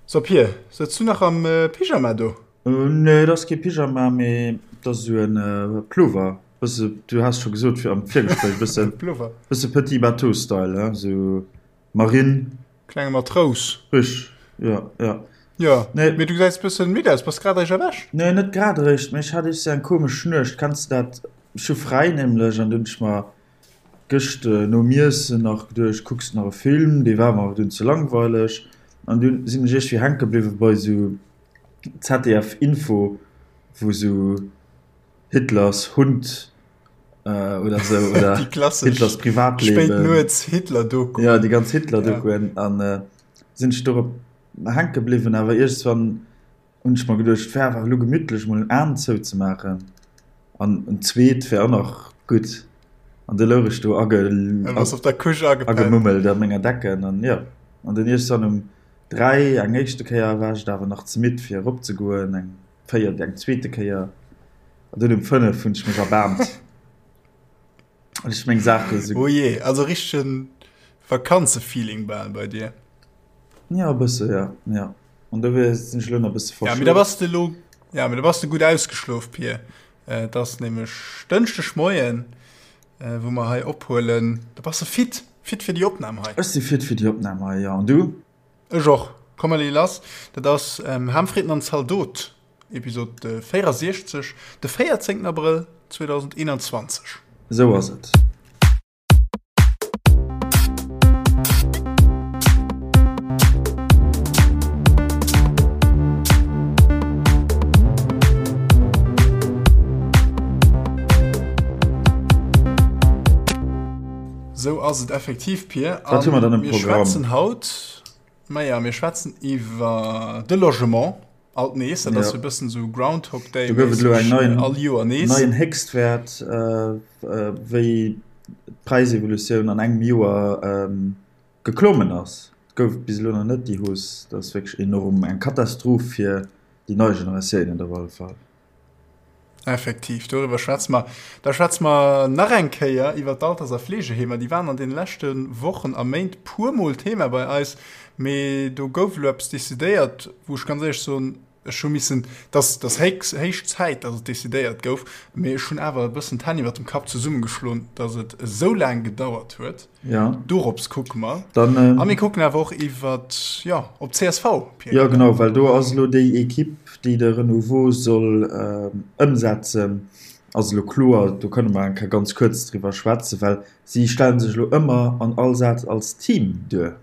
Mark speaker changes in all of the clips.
Speaker 1: So Pir, sëtz du nach am Pyjama do?
Speaker 2: Nee, et ass kee Pyjama, mee et ass esou en Plover. Bësse, du has scho gesot fir am Virgespréich, bësse,
Speaker 1: Plover.
Speaker 2: bësse Petit Bateau Style, hein, esou Marine.
Speaker 1: Klenge Matrous.
Speaker 2: Richteg, jo, jo.
Speaker 1: Jo,
Speaker 2: Nee.
Speaker 1: mee du gesäis bëssen midd aus. Bass grad eréischt erwächt?
Speaker 2: Nee, net grad eréischt, mee ech hat iergst eng komesch Nuecht. Kenns de dat? Ech hu fräi nämlech an dunn hunn ech mer Gëscht nom Iessen nach geduecht, kucks nach e Film, dee war mer awer dunn ze langweileg an dunn sinn ech iergwéi hänke bliwwe bei sou ZDF Info, wou sou Hitlers Hund oder sou oder
Speaker 1: Déi klassesch
Speaker 2: Hitlers Privatleben.
Speaker 1: Spéit nuets Hitler-Doku.
Speaker 2: Jo, déi ganz Hitler-Dokuen an sinn ech dorop hänke bliwwen, awer iergendswann Hunn ech mer geduecht, et wär awer elo gemittlech mol en Aan zou ze maachen an en zweet wär och nach gutt. An du louch ech do agemummelt a menger Decken an jo, an dunn iergendwann um 3 eng éischte Kéier war ech et awer nach ze midd fir erop ze goen, eng véiert, eng zweete Kéier an dunn um 5 hunn ech mech erbaarmt. An ech meng Saache
Speaker 1: sou. Oh jee, also richtegen Vakanzefeeling bal bei dir.
Speaker 2: Ja, e bësse, ja, ja. An dofir sinn ech elo nach e bësse
Speaker 1: Ja, mee da bass de elo, ja, mee da bass de gutt ausgeschlof, Pir. Et ass nämlech Dënschdeg Moien, wou mer hei ophuelen. Da bass de fit, fit fir déi Opnam hei.
Speaker 2: Ech si fit fir déi Opnam hei, ja. An du?
Speaker 1: Ech och. Komm mer leeë lass. Dat ass Ham, Fritten an Zaldot, Episod 64, de 14 Abrëll 2021.
Speaker 2: Esou ass et.
Speaker 1: Sou ass et effektiv, Pir.
Speaker 2: Wat hu mer dann am
Speaker 1: Mir
Speaker 2: Programm?
Speaker 1: schwätzen haut, maja, mir schwätzen iwwer de Logement alt nees. Dat ass
Speaker 2: Ja.
Speaker 1: e bëssen sou Groundhog Day
Speaker 2: Do gouf et elo eng
Speaker 1: mässeg,
Speaker 2: neien,
Speaker 1: all Joer nees.
Speaker 2: neien Héchstwäert, wéi d'Präisevolutioun an engem Joer geklommen ass. Et gouf et bis elo nach net, déi Hausse. Dat ass wierklech enorm, eng Katastroph fir déi nei Generatiounen op alle Fall.
Speaker 1: Effektiv, doriwwer schwätze mer. Da schwätze mer nach eng Kéier iwwer d'Alters a Fleegeheemer. Déi waren an deene leschte Wochen a Méint puermol Thema bei eis, mee do gouf elo eppes decidéiert, wou ech ganz éierlech soen, ech hu missen, dass dass héich héich Zäit, dass et decidéiert gouf, mee ech hunn awer e bëssen d'Hänn iwwer dem Kapp zesummegeschloen, dass et esou laang gedauert huet.
Speaker 2: Ja.
Speaker 1: Dorops kucke mer.
Speaker 2: Dann, ähm,
Speaker 1: A mir kucken awer och iwwer, jo, op csv,
Speaker 2: Pierre. Ja, genau, well do ass elo déi Equipe, déi de Renouveau soll ähm, ëmsetzen, ass elo kloer. Do kënne mer eng Kéier ganz kuerz driwwer schwätzen, well si stelle sech elo ëmmer an all Saz als Team duer.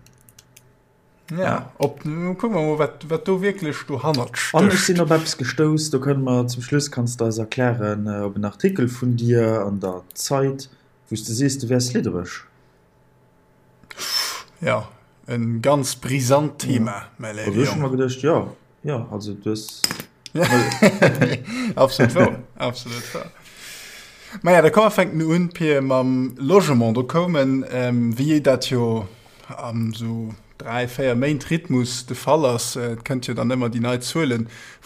Speaker 1: Ja, op, kucke mer mol, wat, wat do wierklech dohannert
Speaker 2: An ech sinn
Speaker 1: stécht.
Speaker 2: op eppes gestouss, do kënne mer zum Schluss, kanns de eis erklären, op en Artikel vun dir an der Zeit, Wou s de sees, du wäers liddereg.
Speaker 1: Jo, e ganz brisant Thema, mäi léiwe
Speaker 2: Also ech hu
Speaker 1: Jong.
Speaker 2: mer geduecht, jo, jo, also du hues.
Speaker 1: Absolut wouer, absolut wouer. Maja, da komm mer fänken un, Pir, mam Logement. Do koumen, wéi dat jo am sou 3, 4 Méint Rhythmus de Fall ass, et kënnt jo dann ëmmer déi nei Zuele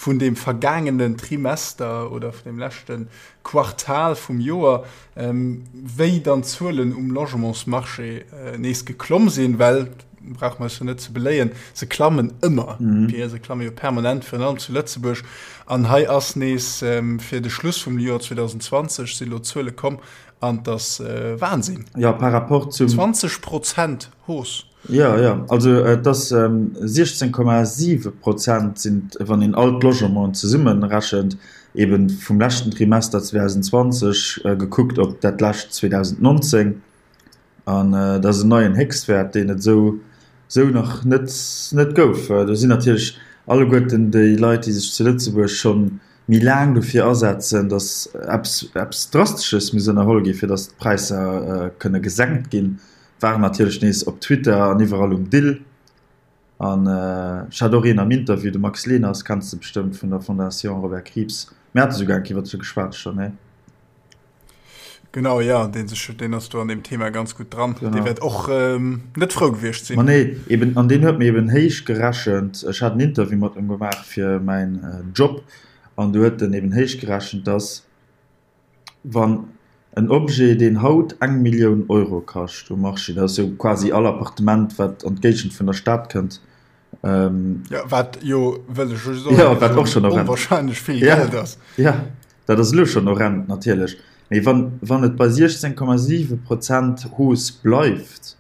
Speaker 1: vun deem vergaangenen Trimester oder vun deem leschte Quartal vum Joer, wéi dann d'Zuelen um Logementsmarché nees geklomm sinn, well, brauche mer eis jo net ze beléien, se klammen ëmmer, Pierre, se klamme jo permanent, virun allem zu Lëtzebuerg. An hei ass nees fir de Schluss vum Joer 2020 si lo Zuele komm an 't ass Wahnsinn.
Speaker 2: Jo, par rapport zum.
Speaker 1: 20 Prozent Hausse.
Speaker 2: Jo, jo, also et ass 16,7 Prozent sinn, wann een all d'Logementen zesummerechent, eeben vum leschten Trimester 2020 gekuckt op dat lescht 2019. An dat ass en neien Héchstwäert, deen et esou esou nach net net gouf. Do sinn natierlech alleguerten déi Leit, déi sech zu Lëtzebuerg scho méi laang dofir asetzen, datt eppes eppes Drastesches muss ënnerholl ginn, fir datt d'Präisser kënne gesenkt ginn, waren natierlech nees op Twitter an iwwerall um Dill. An ech hat och een am Interview, de Max Leners, kenns de bestëmmt vun der Fondation Robert Krieps. Mir hate souguer eng Kéier iwwert se geschwat schonn, nee?
Speaker 1: Genau, jo, deen sech, deen ass do an deem Thema ganz gutt dran. Genau. Dee wäert och net frou gewiescht sinn.
Speaker 2: Ma nee, eben, an deen huet mir eben héich gerechent, ech hat en Interview mat em gemaach fir mäin Job, an do huet en eben héich gerechent, dass, Wann en Objet, deen haut eng Millioun Euro kascht um Marché, dat ass jo quasi all Appartement, wat an d'Géigend vun der Stad kënnt.
Speaker 1: Jo, wat jo, wëll ech just och
Speaker 2: Jo, wat och schonn horrend.
Speaker 1: onwahrscheinlech vill Geld ass.
Speaker 2: Ja, dat ass elo schonn horrend natierlech. Mee wann, wann et bei 16,7 Prozent Hausse bleift,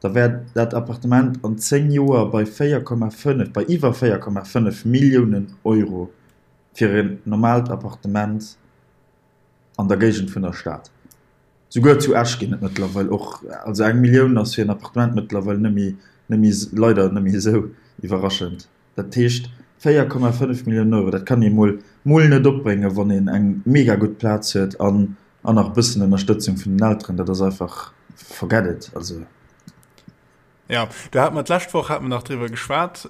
Speaker 2: da wär dat Appartement an 10 Joer bei 4,5, bei iwwer 4,5 Milliounen Euro fir en normaalt Appartement an der Géigend vun der Stad. Souguer zu Esch ginn et mëttlerweil och, also eng Millioun ass fir en Appartement mëttlerweil net méi, net méi, leider net méi esou iwwerraschend. Dat heescht 4,5 Milliounen Euro, dat kann ee mol, mol net opbréngen, wann een eng mega gutt Plaz huet an, an nach e bëssen Ënnerstëtzung vun den Elteren. Dat ass einfach, forget it, also.
Speaker 1: Jo, do hate mer d'lescht Woch hate mer nach driwwer geschwat,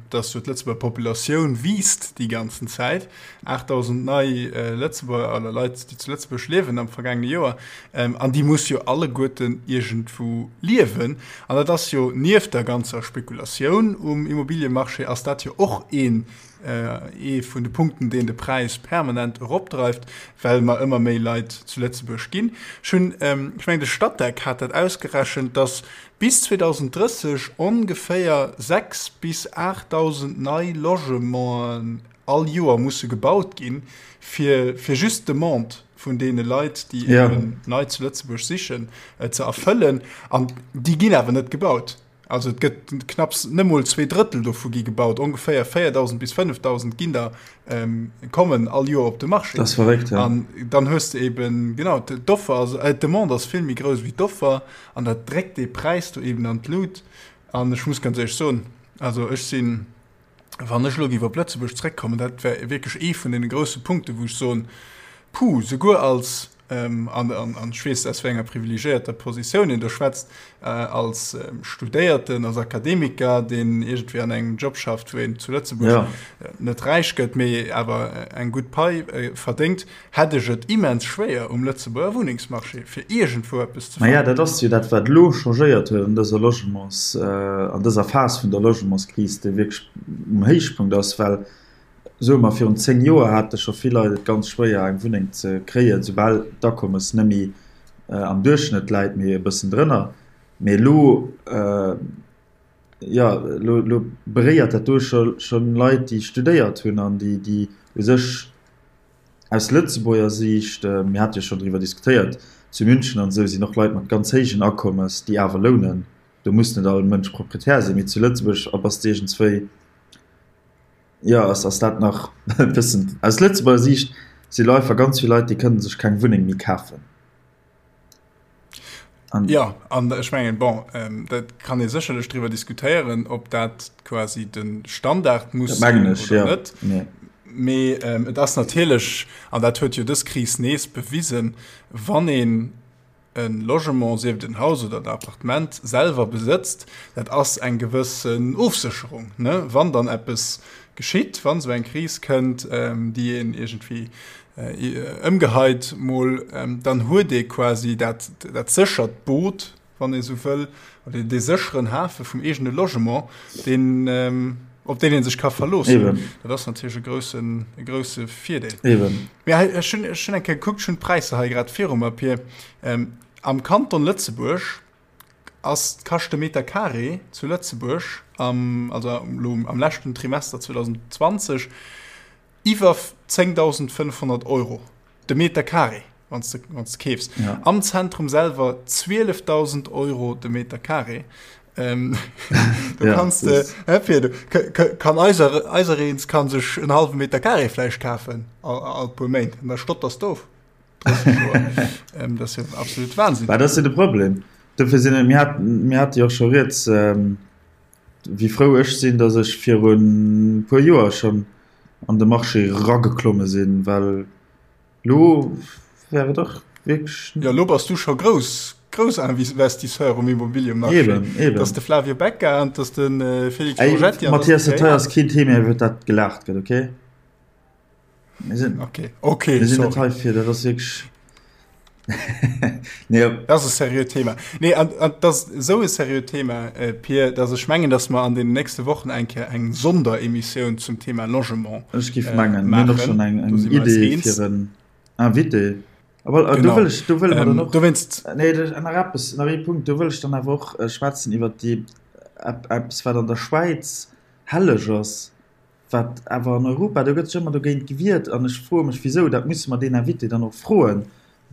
Speaker 1: dass jo d'Lëtzebuerger Populatioun wiisst déi ganzen Zäit. 8.000 nei Lëtzebuerger oder Leit, déi zu Lëtzebuerg liewen am vergaangene Joer. An déi muss jo alleguerten iergendwou liewen. An dat ass jo nieft der ganzer Spekulatioun um Immobiliemarché ass dat jo och een, ee vun de Punkten, deen de Präis permanent eropdreift, well mer ëmmer méi Leit zu Lëtzebuerg ginn. Ech hunn, ech mengen de Statec hat dat ausgerechent, dass bis 2030 ongeféier 6 bis 8.000 nei Logementen all Joer musse gebaut ginn, fir fir just d'Demande vun deene Leit, déi eben nei zu Lëtzebuerg sichen, ze erfëllen. An déi ginn awer net gebaut. Also et gëtt knapps, net mol 2/3 dovu gi gebaut, ongeféier 4.000 bis 5.000 ginn der kommen all Joer op de Marché.
Speaker 2: Dat ass verréckt,
Speaker 1: ja. An dann hues de eben, genau, d'Offer ass, d'Demande ass vill méi grouss wéi d'Offer an dat dréckt dee Präis do eben an d'Lut. An ech muss ganz éierlech soen, also ech sinn, wann ech elo géif op Lëtzebuerg zréckkommen, dat wär wierklech ee vun deene grousse Punkten, wou ech soen, puh, souguer als, an ech weess, aus wéi enger privilegiéierter Positioun een do schwätzt, als Studéierten, als Akademiker, deen iergendwéi an engem Job schafft, wou een zu Lëtzebuerg net räich gëtt, mee awer eng gutt Pai verdéngt, hätt ech et immens schwéier um Lëtzebuerger Wunnengsmarché, fir iergendwou eppes
Speaker 2: ze fannen. Maja, dat ass jo dat, wat elo changéiert huet an dëser Logements, an dëser Phas vun der Logementskris, déi wierklech um Héichpunkt ass, well Soe mer, virun 10 Joer hate scho vill Leit et ganz schwéier eng Wunneng ze kréien, soubal d'Akommes net méi am Duerchschnëtt läit, mee e bëssen drënner. Mee elo, jo, elo, elo beréiert dat do scho schonn Leit, déi studéiert hunn an déi, déi u sech aus Lëtzebuerger Siicht, mir hate jo schonn driwwer diskutéiert, zu München an esou sinn och Leit mat ganz héijen Akommes, déi awer lounen. Do muss net all Mënsch Proprietär sinn, mee zu Lëtzebuerg bass de iergendswéi, Jo, ass ass dat nach e bëssen. Aus Lëtzebuerger Siicht si lo einfach ganz vill Leit, déi kënne sech keng Wunneng méi kafen.
Speaker 1: An ja, an ech mengen, bon, ähm, dat kann ee sécherlech driwwer diskutéieren, ob dat quasi de Standard muss
Speaker 2: sinn oder ja.
Speaker 1: net. Nee. Mee ähm, et ass natierlech, an dat huet jo dës Kris nees bewisen, wann een e Logement, sief et en Haus oder en Appartement, selwer besëtzt, dat ass eng gewëssen Ofsécherung, ne? Wann dann eppes geschitt, wann esou eng Kris kënnt, déi een iergendwéi ëmgeheit mol, dann huet ee quasi dat, dat séchert Boot, wann ee sou wëll, oder dee sécheren Hafe vum eegene Logement, deen, op deen ee sech ka verloossen.
Speaker 2: Eben.
Speaker 1: Dat ass natierlech e groussen, e grousse Virdeel.
Speaker 2: Eben.
Speaker 1: Mee hei, ech hunn, ech hunn eng Kéier gekuckt, ech hunn d'Präisser hei grad viru mer, Pir. Ähm, am Kanton Lëtzebuerg ass, kascht de Meter Carré zu Lëtzebuerg am, also elo am leschten Trimester 2020, iwwer 10.500 Euro de Meter Carré, wann s de, wann s de keefs.
Speaker 2: Ja.
Speaker 1: Am Zentrum selwer 12.000 Euro de Meter Carré. Ähm, du
Speaker 2: ja,
Speaker 1: kannst de, hä, Pir, du, kann eiser, eisereens kann sech en halwe Meter Carré vläicht kafen, all, all puer Méint. An da stotters du of. 30 Joer. ähm, das ist ja absolut Wahnsinn.
Speaker 2: Bah, das ist ja de Problem. Dofir sinn, mir haten, mir hate jo och scho rieds, ähm, wéi frou ech sinn, datt ech virun e puer Joer schonn an de Marché rageklomme sinn, well lo wär et och wierklech.
Speaker 1: Jo, lo bass du scho grouss, grouss Investisseur um Immobiliemarché.
Speaker 2: Eben, eben.
Speaker 1: Dat ass de Flavio Becca an dat ass de Félix Borgetti.
Speaker 2: Ey, Mathias, dat hei ass keen Thema, iwwer dat gelaacht gëtt, okay?
Speaker 1: Mir sinn, okay, okay,
Speaker 2: mir sinn net hei fir, dat ass wierklech.
Speaker 1: nee. Dat ass e seriöt Thema. Nee, an, an dat ass esou e seriöt Thema, äh, Pir, dass ech mengen, dass mer an den nächste Wochen eng Kéier eng Sonderemissioun zum Thema Logement
Speaker 2: Ech géif äh, mengen, mir hunn och schonn eng, eng Idee fir en Invité. Aber äh, do wëll ech, do wëlle mer dann
Speaker 1: ähm,
Speaker 2: och.
Speaker 1: Dowéinst.
Speaker 2: Nee, nach eppes, nach ee Punkt, do wëll ech dann awer och äh, schwätzen iwwer déi, eppes, wat an der Schwäiz. Helleg ass, wat awer an Europa, do gëtt sech ëmmer dogéint gewiert an ech froe mech wisou, dat musse mer deen Invité dann och froen,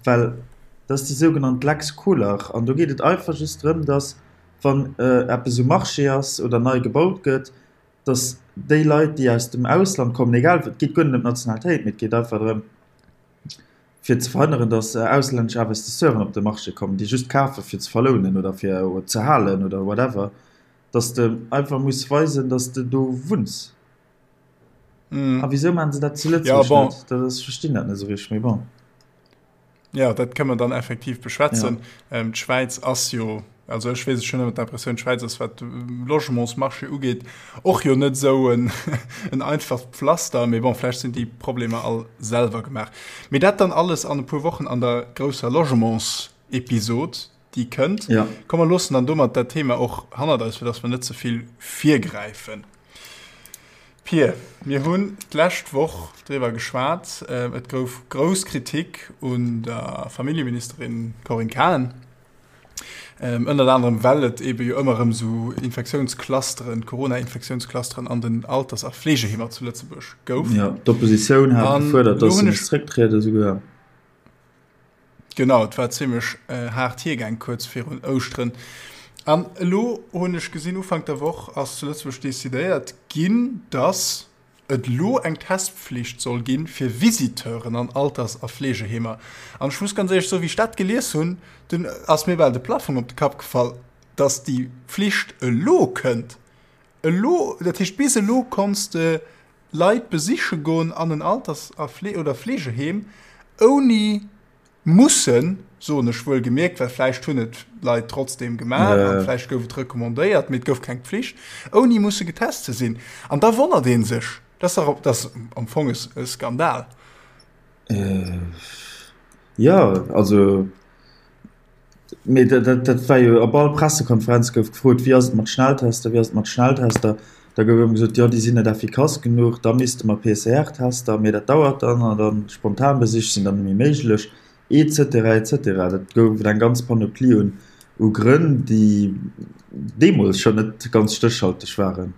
Speaker 2: well dat ass déi sougenannt Lex Koler an do geet et einfach just drëm, datt wann eppes um Marché ass oder nei gebaut gëtt, datt déi Leit déi aus dem Ausland kommen, egal, et geet guer net ëm d'Nationalitéit, mee et geet einfach drëm fir ze verhënneren, datt auslännesch Investisseuren op de Marché kommen, déi just kafe fir ze verlounen oder fir ze halen oder whatever. Dass de einfach muss weisen, dass de do wunns. Mm. A wisou maachen se dat zu Lëtzebuerg ja, bon. net? Dat ass, ech verstinn dat net esou richteg, mee bon.
Speaker 1: Ja, dat kënne mer dann effektiv beschwätzen. Ja. Ähm, D'Schwäiz ass jo, also ech weess, ech hunn ëmmer d'Impressioun, d'Schwäiz ass, wat de Logementsmarché ugeet, och jo net esou en, en einfacht Pflaster, mee bon, vläicht sinn déi Problemer all selwer gemaach. Mee dat dann alles an e puer Wochen an der grousser Logementsepisod. déi kënnt.
Speaker 2: Ja.
Speaker 1: Komm mer loossen dann domat dat Thema och hannert eis, fir dass mer net ze vill virgräifen. Pir, mir hunn d'lescht Woch driwwer geschwat, et gouf grouss Kritik un der Familljeministerin Corinne Cahen, ënnert anerem well et eebe jo ëmmer erëm esou Infektiounsclusteren, Corona-Infektiounsclusteren an den Alters a Fleegeheemer zu Lëtzebuerg gouf.
Speaker 2: Ja, d'Oppositioun hat gefuerdert, dass se misst zrécktrieden esouguer.
Speaker 1: Genau, et war zimmlech haart hiergaang kuerz virun Ouschteren. An elo hunn ech gesinn, Ufank der Woch ass zu Lëtzebuerg decidéiert ginn, datt et elo eng Testpflicht soll gi fir Visiteuren an Alters a Fleegeheemer. An ech muss ganz éierlech soen, wéi ech dat gelies hunn, dunn ass mir bal de Plafong op de Kapp gefall, datt déi Pflicht elo kënnt. Elo, dat heescht bis elo konns de Leit besiche goen an en Alters a oder Fleegeheem, ouni mussen, soen ech wuel gemierkt, well vläicht hunn et Leit trotzdeem gemaach an vläicht gouf et recommandéiert, mee et gouf keng Pflicht, ouni musse getest ze sinn. An da wonnert ee sech. Dat ass dach, dat ass am Fong e Skandal.
Speaker 2: Jo, also. Mee dat war jo op all Pressekonferenz gouf gefrot, wéi ass et mat Schnelltester, wéi ass et mat Schnelltester? Da gouf ëmmer gesot, jo déi sinn net effikass genuch, da misste mer PCR-Tester, mee dat dauert dann an dann Spontanbesich sinn dann net méi méiglech, et cetera, et cetera. Dat gouf et eng ganz Panoplie un u Grënn, déi deemools schonn net ganz stéchhalteg waren.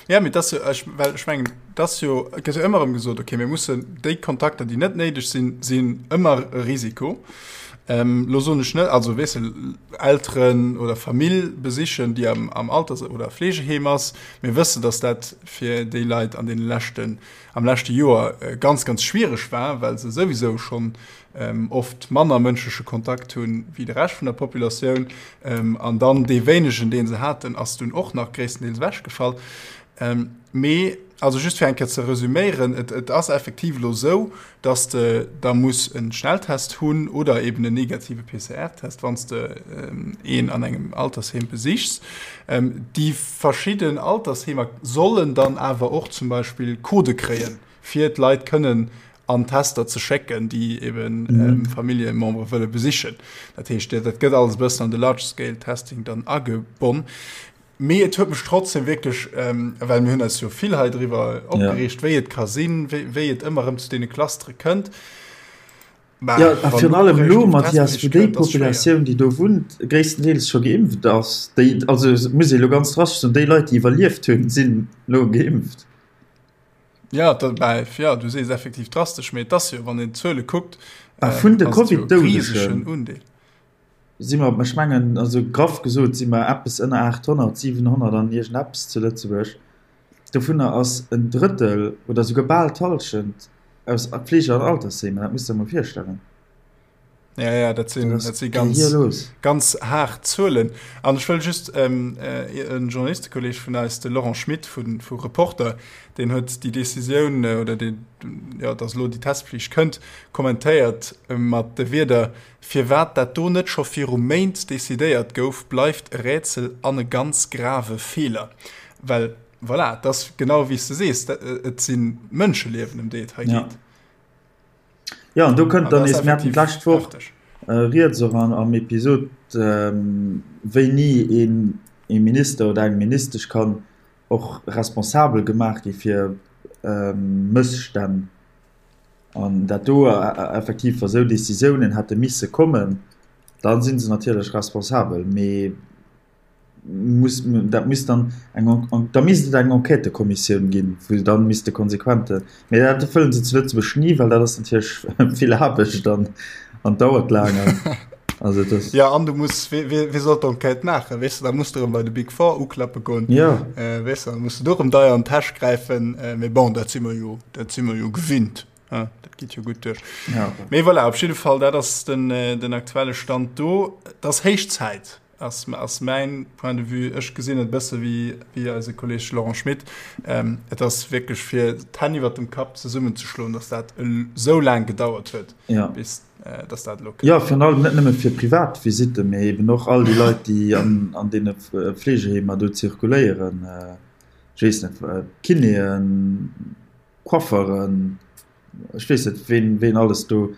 Speaker 1: Ja, mee dat ass jo, ech, well ech mengen, dat ass jo, et gëtt jo ëmmer erëm gesot, okay, mir mussen déi Kontakter, déi net néideg sinn, sinn ëmmer e Risiko. Ähm, lo soen ech net, also weess de, Elteren oder Famill besichen, déi am, am Alters oder Fleegeheem ass. Mir wëssen, datt dat fir déi Leit an deene leschten, am leschte Joer ganz, ganz schwiereg war, well se souwisou schonn oft manner mënschleche Kontakt hunn wéi de Rescht vun der Populatioun. An dann dee wéinegen, dee se haten, ass dunn och nach gréisstendeels ewechgefall. Mee also just fir eng Kéier ze resüméieren, et, et ass effektiv elo esou, dass de da muss e Schnelltest hunn oder eben en negative PCR-Test, wann s de een an engem Altersheem besichs. Déi verschidden Altersheemer sollen dann awer och zum Beispill Codë kréien, fir d'Leit kënnen an Tester ze schécken, déi eben mhm. Familljemembere wëlle besichen. Dat heescht, dat gëtt alles bëssen an de Large-Scale-Testing dann agebonn. Mee et huet mech trotzdem wierklech, ähm, well mir hunn eis jo vill hei driwwer opgereegt, ja. wéi et ka sinn, wéi, wéi et ëmmer erëm zu deene Clustere kënnt.
Speaker 2: Bah, ja, a virun allem elo, Mathias, wou déi Populatioun, déi do wunnt, gréisstendeels scho geimpft ass, déi, also muss ee lo ganz drastesch soen, déi Leit, déi iwwerlieft hunn, sinn elo geimpft.
Speaker 1: Ja, dat, bah, ja, du sees effektiv drastesch, mee et ass jo, wann een d'Zuele kuckt,
Speaker 2: A vun de Covid-Doudege si mer, ech mengen, also graff gesot, si mer eppes ënner 800, 700 an iergendeppes zu Lëtzebuerg. Dovunner ass en Drëttel oder souguer bal d'Hallschent aus Fleege an Altersheemer. Dat muss de der mol virstellen.
Speaker 1: Ja, ja, dat sinn, dat si ganz, ganz haart Zuelen. An ech wëll just ähm, äh, en Journalistekolleg vun eis, de Laurent Schmit vu, vu Reporter, deen huet déi Decisioun äh, oder deen, ja, dass elo déi Testpflicht kënnt, kommentéiert äh, mat de Wierder, Firwat dat do net scho viru Méint decidéiert gouf, bleift e Rätsel an e ganz grave Feeler. Well, voilà, et ass genau wéi s de sees, et si Mënscheliewen, ëm déi et hei geet.
Speaker 2: Ja. Jo, an do kënnt dann nees, mir haten d'lescht Woch rieds och am Episod, wéini ee Minister oder eng Ministesch kann och responsabel gemaach gi fir Mësstänn. An dat do effektiv, wa sou Decisiounen hätte misse kommen, da si se natierlech responsabel. Mee. Muss, dat misst dann eng, da misst et eng Enquêtëkommissioun ginn, wou se dann misste konsequente, mee dat wëllen se zu Lëtzebuerg ni, well dat ass natierlech vill Aarbecht an an dauert laang an also et ass.
Speaker 1: Jo, an du muss, wee, wee, wee soll d'Enquête maachen, weess de, da muss de erëm bei de Big Four uklappe goen,
Speaker 2: Jo.
Speaker 1: weess de, da muss de do erëm deier an d'Täsch gräifen, mee bon, dat si mer jo, dat si mer jo gewinnt, hein, dat geet jo gutt duerch.
Speaker 2: Ja.
Speaker 1: Mee voilà, op jidde Fall, dat ass den, den aktuelle Stand do. Et ass héich Zäit, ass, ass mäin Point de vue. Ech gesinn et e bësse wéi, wéi eise Kolleg Laurent Schmit. Ähm, et ass wierklech fir d'Hänn iwwert dem Kapp zesummenzeschloen, dass dat esou laang gedauert huet,
Speaker 2: ja.
Speaker 1: bis äh, dass dat elo
Speaker 2: kënnt. Ja, virun allem net nëmme fir privat Visitten, mee eben och all déi Leit, déi an, an deene Fleegeheemer do zirkuléieren. Äh, ech weess net, Kinéen, Coifferen, ech weess net, ween, ween alles do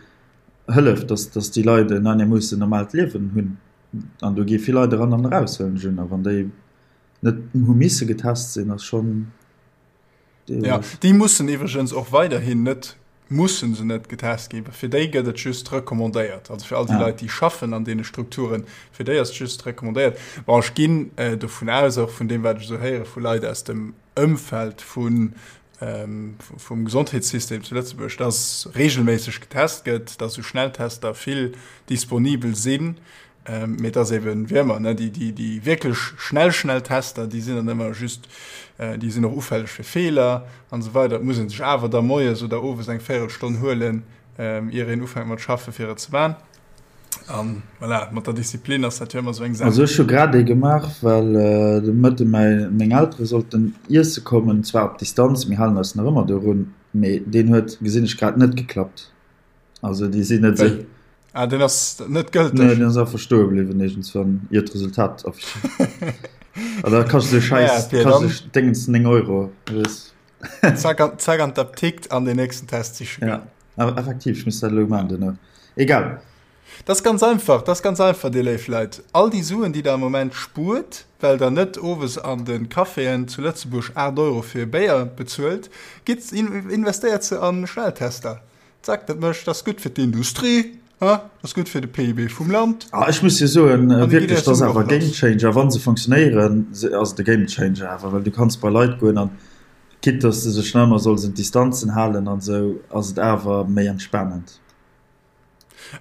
Speaker 2: hëlleft, dass, dass déi Leit en einermoossen normaalt Liewen hunn. An do gi vill Leit eran an eraus, huelen ech un. A wann déi net hu misse getest sinn, ass schonn
Speaker 1: Ja, déi mussen iwwregens och weiderhin net, mussen se net getest ginn. Fir déi gëtt et just recommandéiert. Also fir all déi ah. Leit, déi schaffen an deene Strukturen, fir déi ass et just recommandéiert. Bon, ech ginn äh, dovun aus, och vun deem, wat ech esou héiere vu Leit aus dem Ëmfeld vun vum Gesondheetssystem zu Lëtzebuerg, dass regelméisseg getest gëtt, dass esou Schnelltester vill disponibel sinn, mee dass eben, wéi ëmmer, ne, déi, déi, déi wierklech schnell, schnell Tester, déi sinn dann ëmmer just, déi sinn och ufälleg fir Feeler an esou weider. Et muss ee sech awer da moies oder owes eng Véierelstonn huelen, ier een ufänkt mat schaffen, fir et ze man. An voilà, mat der Disziplin ass dat jo ëmmer esou eng Saach.
Speaker 2: Also ech hu grad ee gemaach, well de Mëtte mäi, meng Eltere sollten iesse kommen, zwar op Distanz, mir halen eis nach ëmmer dorun, mee deen huet, gesinn ech grad, net geklappt. Also déi sinn net esou.
Speaker 1: Wéi? Ah, deen ass net gëlteg?
Speaker 2: Nee, deen ass einfach stoe bliwwen iergendswann, ier d'Resultat affiché. An da kascht esou Schäiss,
Speaker 1: Naja, Pir, dann.
Speaker 2: kascht esou Déngens 9 Euro, weess.
Speaker 1: Zack an, zack an d'Aptikt an den nächsten Test siche
Speaker 2: goen. Ja. Awer effektiv, ech muss dat elo maachen duerno. Egal.
Speaker 1: Dat ass ganz einfach, dat ass ganz einfach, dir léif Leit. All déi Suen, déi der am Moment spuert, well der net owes an de Caféen zu Lëtzebuerg 8 Euro fir e Béier bezuelt, gitt, investéiert se a Schnelltester. Zack, dat mécht, dat ass gutt fir d'Industrie, ha, dat ass gutt fir de PIB vum Land.
Speaker 2: Ah, ech muss jo soen, wierklech, dat ass awer e Gamechanger. Wa se funktionéieren, ass et e Gamechanger awer, well du kanns bei Leit goen an Quitte dass de sech nach ëmmer solls un d'Distanzen halen an esou, ass et awer méi entspanend.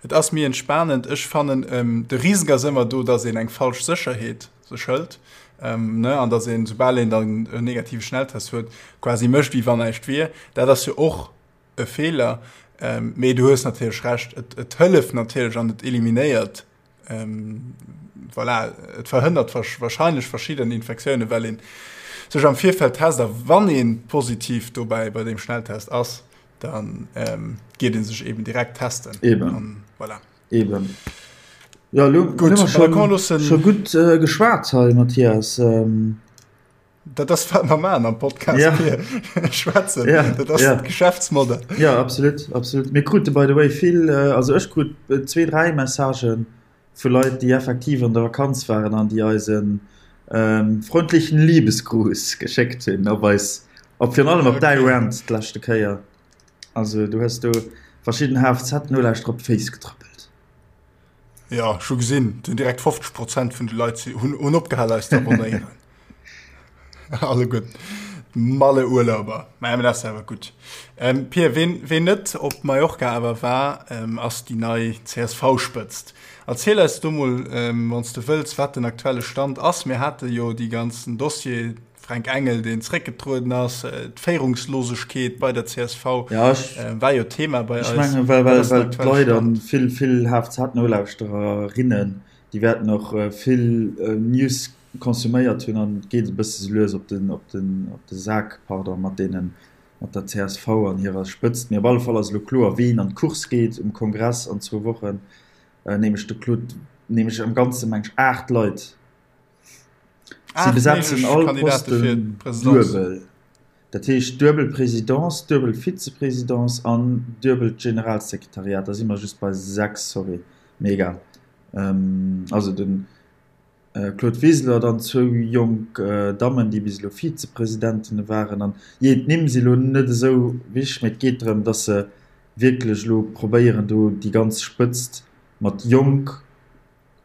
Speaker 1: Et ass méi entspanend. Ech fannen, de Risque ass ëmmer do, dass een eng falsch Sécherheet sech hëlt, ne, an dass een, soubal een dann en negative Schnelltest huet, quasi mécht, wéi wann näischt wier. Dat ass jo och e Feeler. Mee du hues natierlech Recht, et, et hëlleft natierlech an et eliminéiert Ähm, voilà, et verhënnert wahrscheinlech verschidden Infektiounen, well een sech am Virfeld test a wann een positiv dobäi bei deem Schnelltest ass, dann ähm, geet een sech eben direkt testen.
Speaker 2: Eben.
Speaker 1: An, voilà.
Speaker 2: Eben. Ja, lo,
Speaker 1: Gut,
Speaker 2: hu mer schon, schon gutt äh, geschwat hei, Mathias. Ähm,
Speaker 1: Dat ass wat mer maachen am Podcast
Speaker 2: ja.
Speaker 1: schwätzen.
Speaker 2: Ja.
Speaker 1: Dat ass
Speaker 2: ja.
Speaker 1: d'Geschäftsmodell.
Speaker 2: Ja, absolut, absolut. Mir krute by the way vill, äh, also ech krut äh, zwee, dräi Messagen vu Leit, déi effektiv an der Vakanz waren an déi eis en ähm, freundlichen Liebesgruß geschéckt hunn op eis, op virun allem op däi
Speaker 1: Okay.
Speaker 2: Rant d'leschte Kéier. Also du hues do verschidden HFZ-Nolauschterer op d'Féiss getrëppelt.
Speaker 1: Ja, ech hu gesinn, et hunn direkt 50 Prozent vun de Leit hunn, hunn opgehal eis ze abonnéieren. Alleguer d'Malle-Urlauber. Mä dat ass awer gutt. Ähm, Pir, ween, ween net op Mallorca awer war, ähm, ass déi nei CSV-Spëtzt. Erziel eis do mol, ähm, wann s de wëlls, wat den aktuelle Stand ass. Mir hate jo déi ganzen Dossier, Fränk Engel, deen zréckgetrueden ass, d'Féierungslosegkeet bei der csv
Speaker 2: ja, ech,
Speaker 1: war jo Thema bei
Speaker 2: ech
Speaker 1: eis.
Speaker 2: Mengen, well, well, well d'Leit an vill, vill HFZ-Nolauschtererinnen, déi wäerten och vill News konsuméiert hunn an et geet e bësse sou lues op den, op den, op de Sak, pardon, mat deenen, mat der csv an hirer Spëtzt. Mee op alle Fall ass elo kloer, ween an d'Course geet um Kongress an zwou Wochen, nämlech de Claude, nämlech am Ganze meng ech 8 Leit. Si besetzen all Posten duebel, dat heescht duebel Présidence, duebel Vize-Présidence an duebelt Generalsekretariat. Da si mer just bei 6, sorry, mee egal. Also de Claude Wiseler, dann zwou jonk Dammen, déi bis elo Vize-Presidentene waren. An jee, d'Nimm si lo net esou wichteg, mee et geet drëm, datt se wierklech elo probéieren, do déi ganz Spëtzt mat jonk.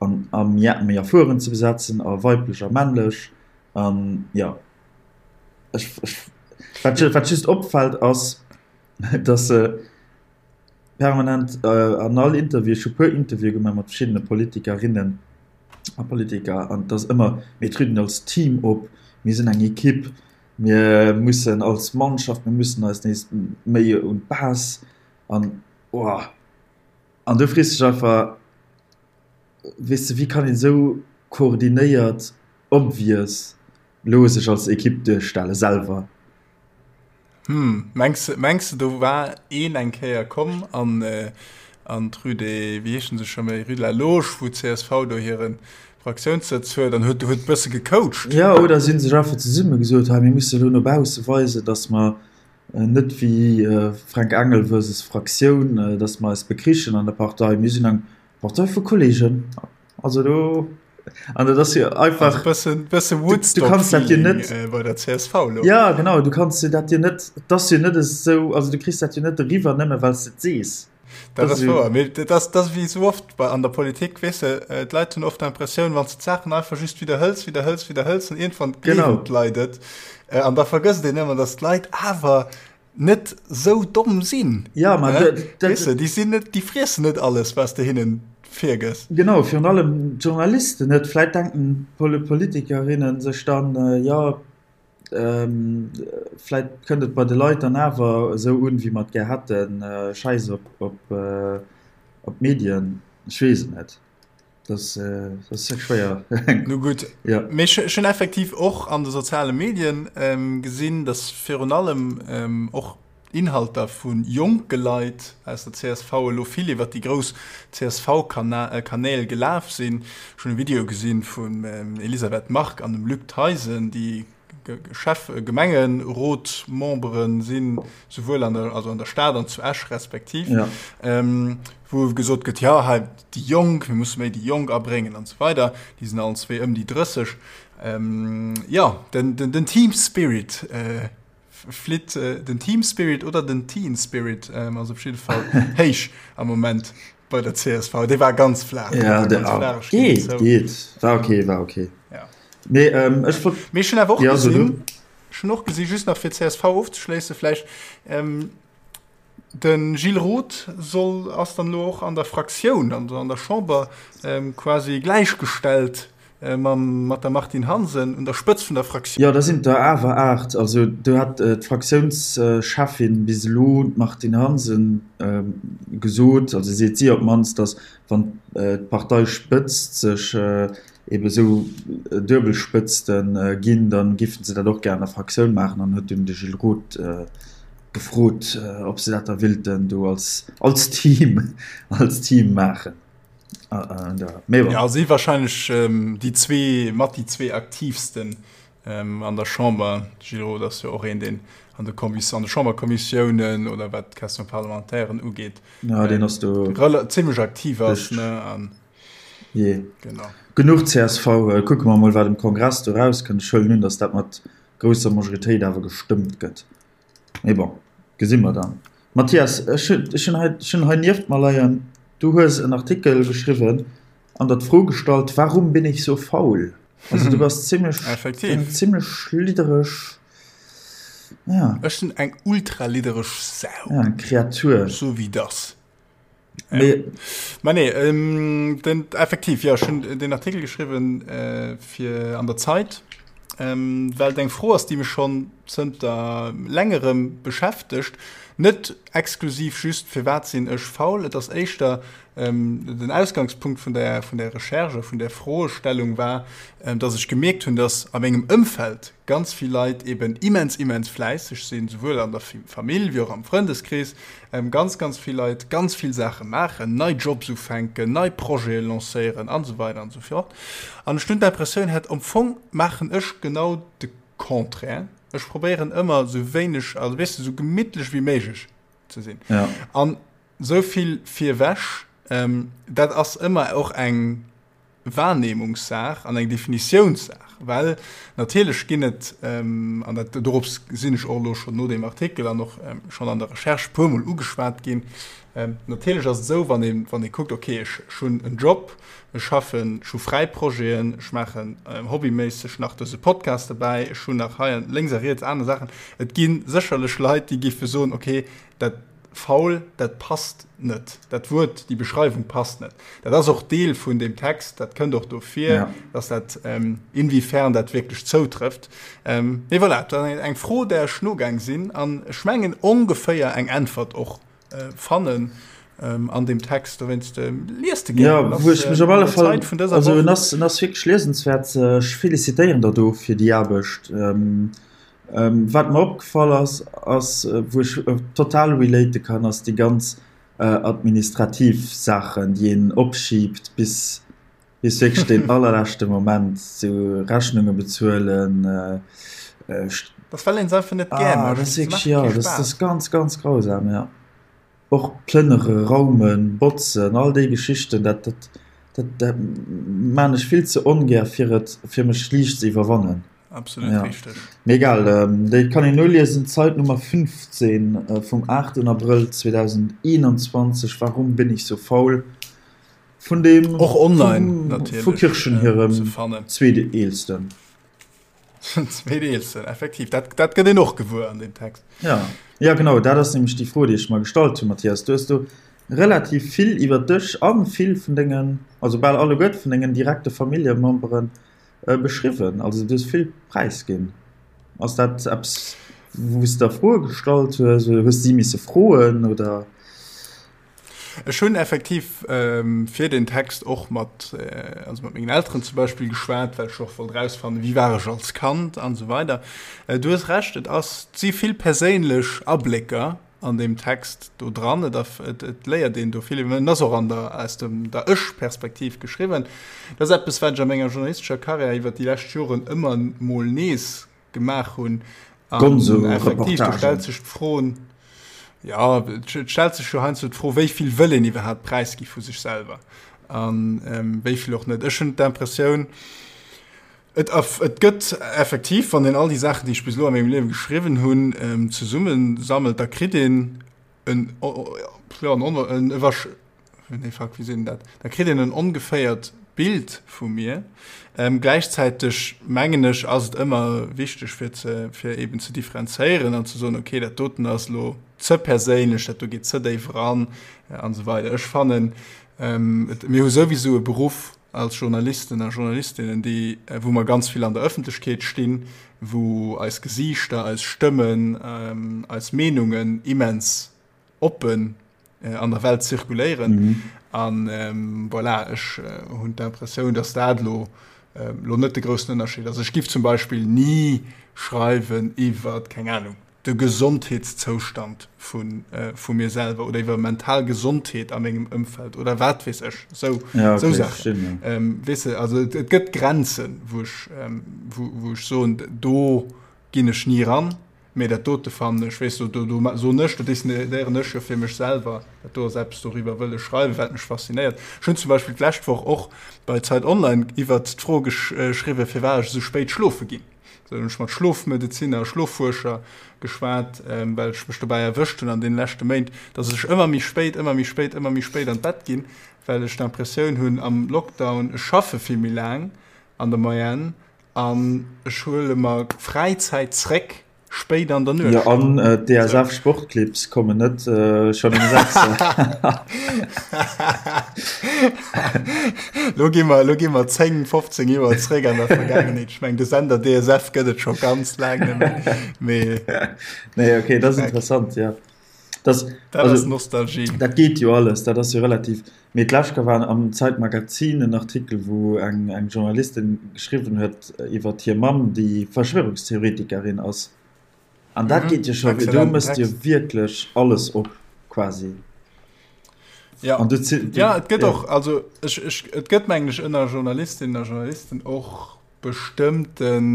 Speaker 2: An a méi erfueren ze besetzen a weiblech a männlech an jo ech ech wat wat just opfält ass dass se permanent an all Interview ech hu puer Interviewe gemaach mat verschiddene Politikerinnen a Politiker an et ass ëmmer mir trieden als Team op, mir sinn eng Ekipp, mir mussen als Mannschaft, mir mussen eis nees méi un d'Base an oh. An du frees dech einfach, weess de, wéi kann een esou koordinéiert obvious lo sech als Ekipp duerstellen, selwer?
Speaker 1: Hm, mengs de, mengs de do war een eng Kéier komm an an d'Rue des, wéi heeschen se scho méi, Rue de la Loge, wou d'CSV do hire Fraktiounssëtz huet an huet huet bësse gecoacht?
Speaker 2: Jo, oder si hunn sech einfach zesumme gesot, hei mir musse lo no bausse weisen, datt mer Net wéi Fränk Engel versus Fraktioun, datt mer eis bekrichen an der Partei. Mir sinn eng Partei vu Kolleegen. Also do, an dat ass jo einfach.
Speaker 1: Also bëssen, bësse
Speaker 2: Du kanns dat jo net.
Speaker 1: Woodstock-Feeling bei der csv
Speaker 2: elo. Ja, genau, du kanns jo dat jo net, et ass jo net esou, also du kriss dat jo net eriwwer, nëmme well s de et sees.
Speaker 1: Dat ass wouer, mee dat ass, dat ass wéi esou oft bei, an der Politik, weess de, d'Leit hunn oft d'Impressioun, wann s de d'Saachen einfach just widderhëls, widderhëls, widderhëls, dann iergendwann gleewen d'Leit et. An da vergësst een ëmmer, datt d'Leit awer net esou domm sinn.
Speaker 2: Ja, ma dat,
Speaker 1: dat. Weess de, déi sinn net, déi friessen net alles, wat s de hinnen virgëss.
Speaker 2: Genau, virun allem d'Journalisten net. Vläit denken d'Politikerinnen sech dann, jo, Vläit kënnt et bei de Leit dann awer esou un, wéi mer et gär hätten. Schäiss op d'Medien, ech weess et net. Dat ass schwéier.
Speaker 1: Nu gutt, mee ech hunn effektiv och an de soziale Medien gesinn, datt virun allem och Inhalter vu jonke Leit aus der csv elo vill iwwer déi grouss CSV-Kanäl gelaf sinn. Ech hunn e Video gesinn vum Elisabeth Margue an dem Luc Theisen, déi Chef Gemengerotmembere sinn, souwuel an der, also an der Stad an zu Esch respektiv, wou gesot gëtt, jo hei déi Jonk, mir musse méi déi Jonk abréngen an esou weider. Déi sinn allen zwee ëm déi 30. Jo, den Team Spirit Flitt den Team Spirit oder den Teen Spirit ass op jidde Fall héich am Moment bei der csv. Dee war ganz flaach.
Speaker 2: Ja,
Speaker 1: ganz flaach,
Speaker 2: ech ginn et zou. Geet, geet. War okay, war okay.
Speaker 1: Ja.
Speaker 2: Mee ähm, ech wollt.
Speaker 1: Mee ech hunn awer och ja, gesinn, ech hunn och gesinn, just nach fir csv ofzeschléissen vläicht, ähm, De Gilles Roth soll, ass dann elo och an der Fraktioun, also an der Chamber, quasi gläichgestellt mam, mat der Martine Hansen un der Spëtzt vun der Fraktioun.
Speaker 2: Jo, da sinn et der awer 8. Also do hat d'Fraktiounscheffin bis elo, d'Martine Hansen, gesot, also seet si op d'mannst, datt wann d'Parteispëtzt sech ebe sou Duebelspëtzte ginn, da géife se dat och gär an der Fraktioun maachen an huet dunn de Gilles Roth gefrot, ob se dat da willten do als, als Team, als Team maachen.
Speaker 1: Mee bon. Ja, si wahrscheinlech déi zwee, mat déi zwee aktiivsten an der Chamber. De Gilles Roth ass jo och een, deen an de Kommis-, an de Chamberkommissiounen oder wat d'Question-parlementairen ugeet,
Speaker 2: Ja, deen ass do
Speaker 1: zimmlech aktiv ass, ne, an.
Speaker 2: Jee. Genau. Genuch csv. Kucke mer mol, wat um Kongress do erauskënnt. Ech huelen un, datt dat mat grousser Majoritéit awer gestëmmt gëtt. Mee bon, gesi mer dann. Mathias, ech hunn hei, ech hunn hei nieft mer leien, du hues en Artikel geschriwwen an der d'Fro gestallt, Warum bin ich so faul? Also du bass zimmlech, eng zimmlech liddereg,
Speaker 1: ja. Ech sinn eng ultraliddereg Sau.
Speaker 2: Ja, eng Kreatur.
Speaker 1: Sou wéi dass. Nee. Ma nee, ähm, den, effektiv, ja, schon den Artikel geschrieben äh, fir an der Zeit, ähm, well eng Fro ass, déi mech schon zënter längerem beschäftegt. Net exklusiv just firwat sinn ech faul, et ass éischter ähm, den Ausgangspunkt vun der, vun der Recherche, vun der Froestellung war, ähm, dass ech gemierkt hunn, dass a mengem Ëmfeld ganz vill Leit eben immens, immens fläisseg sinn, souwuel an der Famill wéi och am Frëndeskrees, Ganz, ganz vill Leit ganz vill Saache maachen, nei Jobs ufänken, nei Projete lancéieren an esou weider an esou fort. An ech hunn d'Impressioun hat, am Fong maachen ech genau de Contraire. Ech probéieren ëmmer esou wéineg, also weess de, esou gemittlech wéi méiglech ze sinn. An esou vill virewech, dat ass ëmmer och eng Wahrnehmungssaach an eng Definitiounssaach. gemaach. Well natierlech ginn et, an dat dorops sinn ech och elo schonn no deem Artikel an och schonn an der Recherche e puermol ugeschwat ginn, natierlech ass et esou, wann ee wann ee kuckt, okay, ech ech hunn en Job, ech schaffen, ech hu fräi Projeten, ech maachen hobbyméisseg nach dëse Podcast dobäi, ech hunn nach hei an lénks a riets aner Saachen. Et gi sécherlech Leit, déi géife soen, okay, dat Faul, dat passt net. Dat Wuert, déi Beschreiwung passt net. Dat ass och Deel vun deem Text, dat kënnt och do vir, dass dat, inwiefern dat wierklech zoutrëfft. Mee voilà, dat ass eng Fro, där ech nogaang sinn an ech mengen ongeféier eng Äntwert och fannen an deem Text. Dowéinst liest e
Speaker 2: gär. Jo, wou ech mech op alle Fall, also en ass, en ass wierklech liesenswäert. Ech felicitéieren der do fir déi Aarbecht. Wat mer opgefall ass, ass, wou ech total relate kann, ass déi ganz administrativ Saachen, déi een opschiibt bis bis wierklech deen allerleschte Moment, sou Rechnunge bezuelen.
Speaker 1: Dat well een se einfach net gär
Speaker 2: mécht. Dat ass wierklech, jo, dat ass ganz, ganz grausam, jo. Och plënnere, raumen, botzen, all déi Geschichten, dat, dat, dat, dat maan ech vill ze ongär fir et, fir mech liicht ze iwwerwannen.
Speaker 1: Absolut ja. richteg.
Speaker 2: Mee egal, ähm, déi kann een noliesen, Zeit Nummer 15 äh, vum 8. Abrëll 2021, Warum bin ich so faul? Vun dem
Speaker 1: och online
Speaker 2: natierlech vu Kirchen hirem äh, zweeteelsten.
Speaker 1: Zweeteelsten, effektiv. Dat, dat gëtt een och gewuer an dem Text.
Speaker 2: Ja. Ja, genau, dat ass nämlech déi Fro, déi ech mer gestallt hunn, Mathias. Du hues do relativ vill iwwer dech a vill vun dengen, also bal alleguerte vun dengen direkte Familljememberen beschriwwen. Also du hues vill präisginn. Ass dat eppes, wou s de der Froe gestallt hues oder hues si misse froen oder?
Speaker 1: Ech hunn effektiv fir den Text och mat, also mat mengen Elteren zum Beispill geschwat, well ech och wollt erausfannen, wéi war ech als Kand an esou weider. Du hues Recht, et ass, et si vill perséinlech Ablécker an deem Text do dran. Et, et, et léiert een do vill iwwer, en ass och an der, aus dem, der Ech-Perspektiv geschriwwen. Dat ass eppes, wat ech a menger journalistescher Karriär iwwer déi lescht Joren ëmmer mol nees gemaach hunn.
Speaker 2: An
Speaker 1: effektiv, do stellt sech d'Fro, ja, et stellt sech jo heiansdo d'Fro, wéi vill wëll een iwwerhaapt präisgi vu sech selwer an ähm, wéi vill och net. Ech hunn d'Impressioun, et, et gëtt effektiv, wann een all déi Saachen, déi ech bis elo a mengem Liewe geschriwwen hunn, ähm, zesummesammelt, da kritt een en, ja, en, en, Nee, fuck, wéi seet een dat? Da kritt een en ongeféiert Bild vu mir. Ähm, gläichzäiteg mengen ech, ass et ëmmer wichteg fir ze, fir eben ze differenzéieren an ze soen, okay, dat doten ass elo ze perséinlech, dat do geet ze déif eran an esou weider. Ech fannen, ähm, et, mir hu souwisou e Beruff als Journalisten a Journalistinnen, déi, wou mer ganz vill an der Ëffentlechkeet stinn, wou eis Gesiichter, eis Stëmmen, ähm, eis Meenungen immens oppen an der Welt zirkuléieren. An voilà, ech hunn d'Impressioun, datt dat elo elo net de groussen Ënnerscheed ass. Ech giff zum Beispill ni schreiwen iwwer, keng Ahnung, de Gesondheetszoustand vu vu mir selwer oder iwwer mental Gesondheet a mengem Ëmfeld oder wat weess ech, esou esou Saachen. Weess de, also et gëtt Grenzen, wou ech wou ech soen, do ginn ech ni eran. Mee dat dote fannen ech, weess du, do, do soen ech, do decidéieren ech jo fir mech selwer, dat do ass eppes, doriwwer wëll ech schreiwen, wat mech faszinéiert. Ech hunn zum Beispill d'lescht Woch och bei Zeit Online iwwert d'Fro geschriwwen, firwat ech esou spéit schlofe ginn. Do hunn ech mat Schlofmedezinner a Schloffuerscher geschwat, well ech mech dobäi erwëscht hunn an deene leschte Méint, dass ech ëmmer méi spéit, ëmmer méi spéit, ëmmer méi spéit an d'Bett ginn, well ech d'Impressioun hunn am Lockdown, ech schaffe vill méi laang an der Moyenne An ech huele mer Fräizäit zréck, spéit an der Nuecht.
Speaker 2: Jo, an d'DSF Sportclips kommen net schonn um 6.
Speaker 1: Lo gi mer, lo gi mer 10, 15 Joer zréck an der Vergaangenheet. Ech meng, de Sender DSF gëtt et scho ganz laang net méi.
Speaker 2: Mee. Nee, okay, dat ass interessant, jo.
Speaker 1: Das, dat also, ass Nostalgie.
Speaker 2: Dat geet jo alles, dat ass jo relativ. Mee d'lescht Kéier war am Zeitmagazin en Artikel, wou eng, eng Journalistin geschriwwen huet iwwer hir Mamm, déi Verschwörungstheoretikerin ass. An dat mhm. geet jo scho, do mësst jo wierklech alles op quasi.
Speaker 1: Ja. An du, du, ja, et gëtt ja. och, also ech, ech, et gëtt mengen ech ënner Journalistinnen a Journalisten och bestëmmten,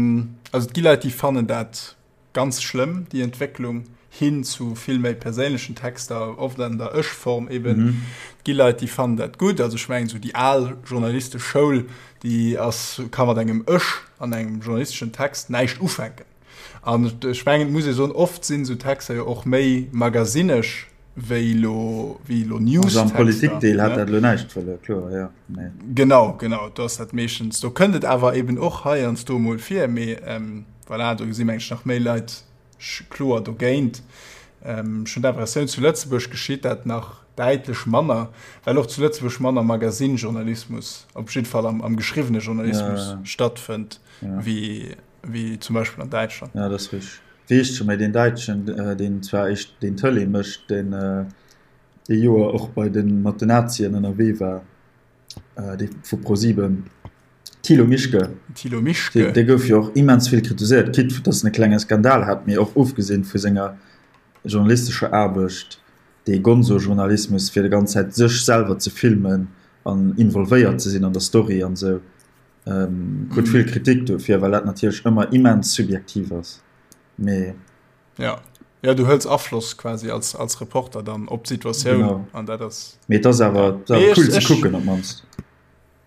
Speaker 1: also et gi Leit, déi fannen dat ganz schlëmm, déi Entwécklung. Hin zu vill méi perséinlechen Texter, oft an der Ech-Form eben. Et gi Leit, déi fannen dat gutt. Also ech mengen, esou déi al journalistesch Schoul, déi ass, ka mat engem Ech an engem journalisteschen Text näischt ufänken. An ech mengen, et muss ee soen, oft sinn esou Texter jo och méi magazinesch wéi elo, wéi elo
Speaker 2: Also am Newstexter, Politikdeel hat ne? dat elo näischt verluer, kloer, jo,
Speaker 1: mee. Genau, genau, do ass dat meeschtens, do kënnt et awer eben och heiansdo emol vir, mee voilà, do gesi meng ech nach méi Leit kloer dogéint. Ech hunn d'Impressioun, zu Lëtzebuerg geschitt dat nach däitlech manner, well och zu Lëtzebuerg manner Magasinjournalismus, op jidde Fall am geschriwwene Journalismus, stattfënnt, wéi zum Beispill an Däitschland.
Speaker 2: Jo, dat ass richteg. Wéi heescht scho méi deen Däitschen, deen zwar éischt deen Tëlee mécht, deen ee Joer och bei de mat den Nazien ënnerwee war? Dee vu ProSieben, Thilo Mischke.
Speaker 1: Thilo Mischke.
Speaker 2: Dee gouf jo och immens vill kritiséiert, quitte datt en e klenge Skandal hat, mee och ofgesinn vu senger journalistescher Aarbecht, dee Gonzo-Journalismus, fir déi ganz Zäit sech selwer ze filmen an involvéiert ze sinn an der Story an esou, krut vill Kritik dofir, well dat natierlech ëmmer immens subjektiv ass. Mee.
Speaker 1: Ja. Ja, du hëls Afloss quasi als, als Reporter dann op d'Situatioun
Speaker 2: an dat ass. Mee et ass awer cool ze kucken op d'mannst.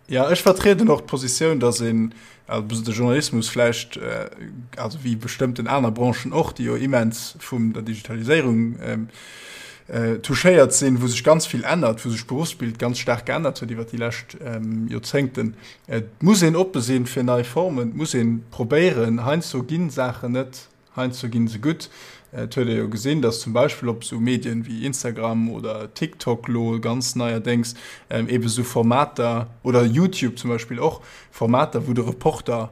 Speaker 1: Ja, ech vertrieden och d'Positioun, datt een, also de Journalismus vläicht, also wéi bestëmmten aner Branchen och, déi jo immens vum der Digitaliséierung touchéiert sinn, wou sech ganz vill ännert, wou sech d'Beruffsbild ganz staark geännert huet iwwer déi lescht Joerzéngten, et muss een oppe sinn fir nei Formen, et muss ee probéieren, heiansdo gi Saachen net Heiansdo ginn se gutt. Et huet ee jo gesinn, datt zum Beispill op esou Medien wéi Instagram oder TikTok lo ganz neierdéngs eebe sou Formater, oder YouTube zum Beispill och, Formater, wou de Reporter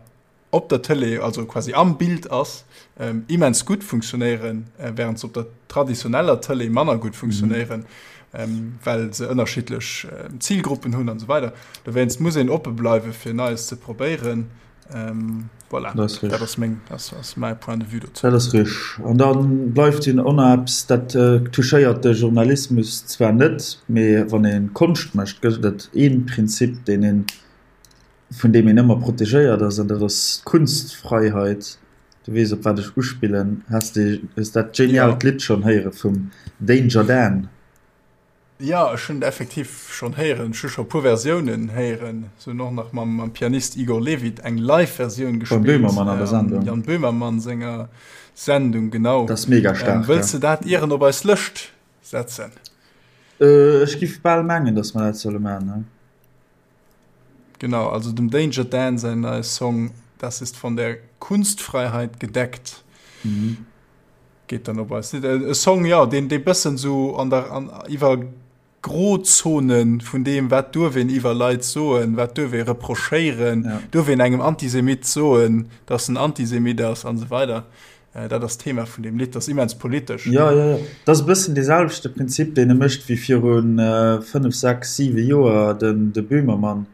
Speaker 1: op der Tëlee, also quasi am Bild ass, immens gutt funktionéieren, wärend se op der traditioneller Tëlee manner gutt funktionéieren, well se ënnerschiddlech Zilgruppen hunn an esou weider. Dowéinst muss een oppe bleiwe fir Neies ze probéieren. Ähm, voilà.
Speaker 2: Dat ass
Speaker 1: dat ass meng, das ass mäi Point de vue
Speaker 2: dozou. Dat ass richteg. An da bleift jo och nach eppes, dat touchéiert de Journalismus zwar net, mee wann ee Konscht mécht, gëtt et ee Prinzip, deen een, vun deem een ëmmer protegéiert ass, an dat ass d'Kunstfreiheit. Du weess, op wat ech uspillen. Has de, hues dat geniaalt Lidd schonn héiere vum Danger Dan?
Speaker 1: Jo, ech hunn et effektiv schonn héieren. Ech hu scho e puer Versiounen héieren. Se hunn och nach mam mam Pianist Igor Levit eng Live-Versioun
Speaker 2: gespillt. Beim Böhmermann an der
Speaker 1: Sendung. Jan Böhmermann senger Sendung, genau.
Speaker 2: Dat ass mega staark.
Speaker 1: Wëlls de dat ieren op eis Lëscht setzen?
Speaker 2: Ech giff bal mengen, datt mer dat solle maachen, ne?
Speaker 1: Genau, also dem Danger Dan säin neie Song Das ist von der Kunstfreiheit gedeckt. Geet dann op eis. E Song, jo, deen dee bëssen sou an der an iwwer Grozone vun deem, wat duerf een iwwer Leit soen, wat duerf ee reprochéieren, ja. duerf een engem Antisemit soen, datt en Antisemit ass an esou weider. Äh, dat ass d'Thema vun deem Lidd, dat ass immens politesch.
Speaker 2: Ja, ja, ja. Dat ass e bëssen dee selwechte Prinzip, deen e mécht wéi virun 5, 6, 7 Joer den de Böhmermann.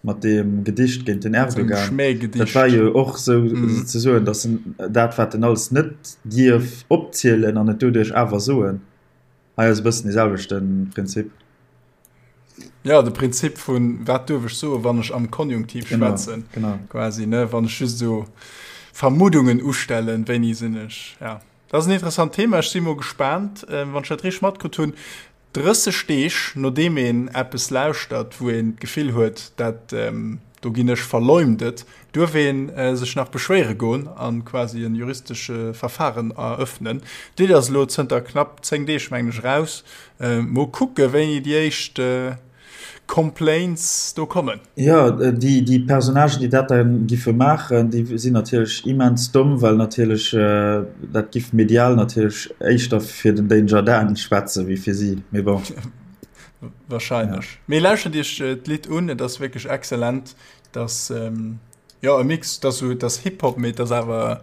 Speaker 2: mat deem Gedicht géint den Erdogan. Dat war jo och sou mm. ze soen, datt en dat wat en alles net dierf opzielen an et doduerch awer soen. Hei ass e bëssen dee selwechte Prinzip.
Speaker 1: Ja, de Prinzip vun wat duerf ech soen, wann ech am Konjunktiv schwätzen.
Speaker 2: Genau, genau.
Speaker 1: Quasi ne wann ech just so Vermuddungen ustellen, wéini sinn ech. Ja. Dat ass en interessant Thema. Ech si mo gespaant, äh, wann ech dat richteg matkritt hunn. 30 Deeg nodeem een eppes lauschtert, wou een d'Gefill huet, dat do ginn ech verleumdet, duerf ee sech nach beschwéiere goen a quasi e juristesche Verfaren erëffnen. D'Lidd ass elo zënter knapp 10 Deeg, mengen ech, eraus. Mol kucke wéini déi éischt Complaints do kommen.
Speaker 2: Jo, déi Personnagen, déi dat da giffe maachen, déi sinn natierlech immens domm, well natierlech dat giff medial natierlech éischter fir den Danger Dan schwätze wéi fir si. Mee bon.
Speaker 1: Wahrscheinlech. Mee lauschtert iech d'Lidd un, et ass wierklech excellent. Et ass, jo, e Mix, et ass esou, et ass Hip-Hop, mee et ass awer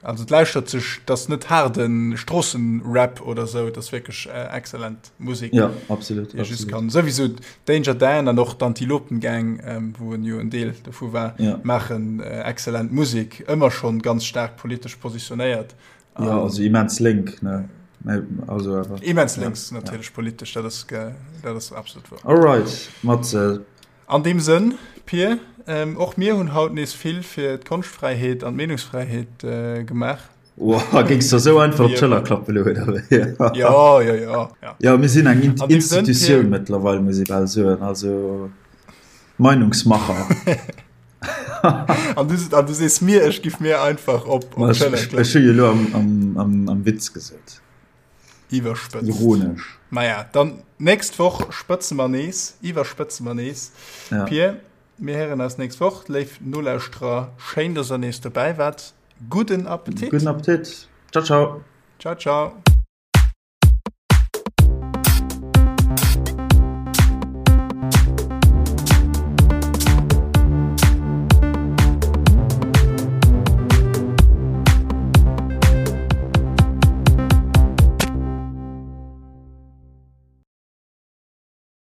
Speaker 1: Also et lauschtert sech, et ass net haarde Stroossenrap oder sou, et ass wierklech excellent Musek.
Speaker 2: Ja, absolut.
Speaker 1: Déi ee just kann. Souwisou Danger Dan an och d'Antilopen Gang, wou en jo en Deel dovu war,
Speaker 2: ja.
Speaker 1: maachen excellent Musek, ëmmer schonn ganz staark politesch positionéiert.
Speaker 2: Ja, also immens lénk, ne? Also
Speaker 1: awer. Immens lénks, ja, natierlech ja. politesch, dat ass, dat ass absolut
Speaker 2: wouer. Alright, Matze.
Speaker 1: An deem Sënn, Pir, och mir hunn haut nees vill fir d'Konschtfräiheet an d'Meenungsfräiheet gemaach.
Speaker 2: Wow, géings der sou einfach op d'Schëller klappe lo, oder wéi?
Speaker 1: Ja, ja, ja.
Speaker 2: Ja, ja mir sinn eng Institutioun mëttlerweil, muss ee bal soen. Also Meinungsmacher.
Speaker 1: An du, an du sees mir, ech giff mir einfach op, op
Speaker 2: d'Schëller klappen. Ech hu jo lo am, am, am, am Witz gesot.
Speaker 1: Iwwerspëtzt.
Speaker 2: Ironesch.
Speaker 1: Maja, dann nächst Woch spëtze mer nees, iwwerspëtze mer nees. Ja. Pir, mir héieren eis nächst Woch. Léif Nolauschterer, schéin, dass der nees dobäi waart. Gudden Appetit.
Speaker 2: Gudden Appetit. Ciao, ciao.
Speaker 1: Ciao, ciao.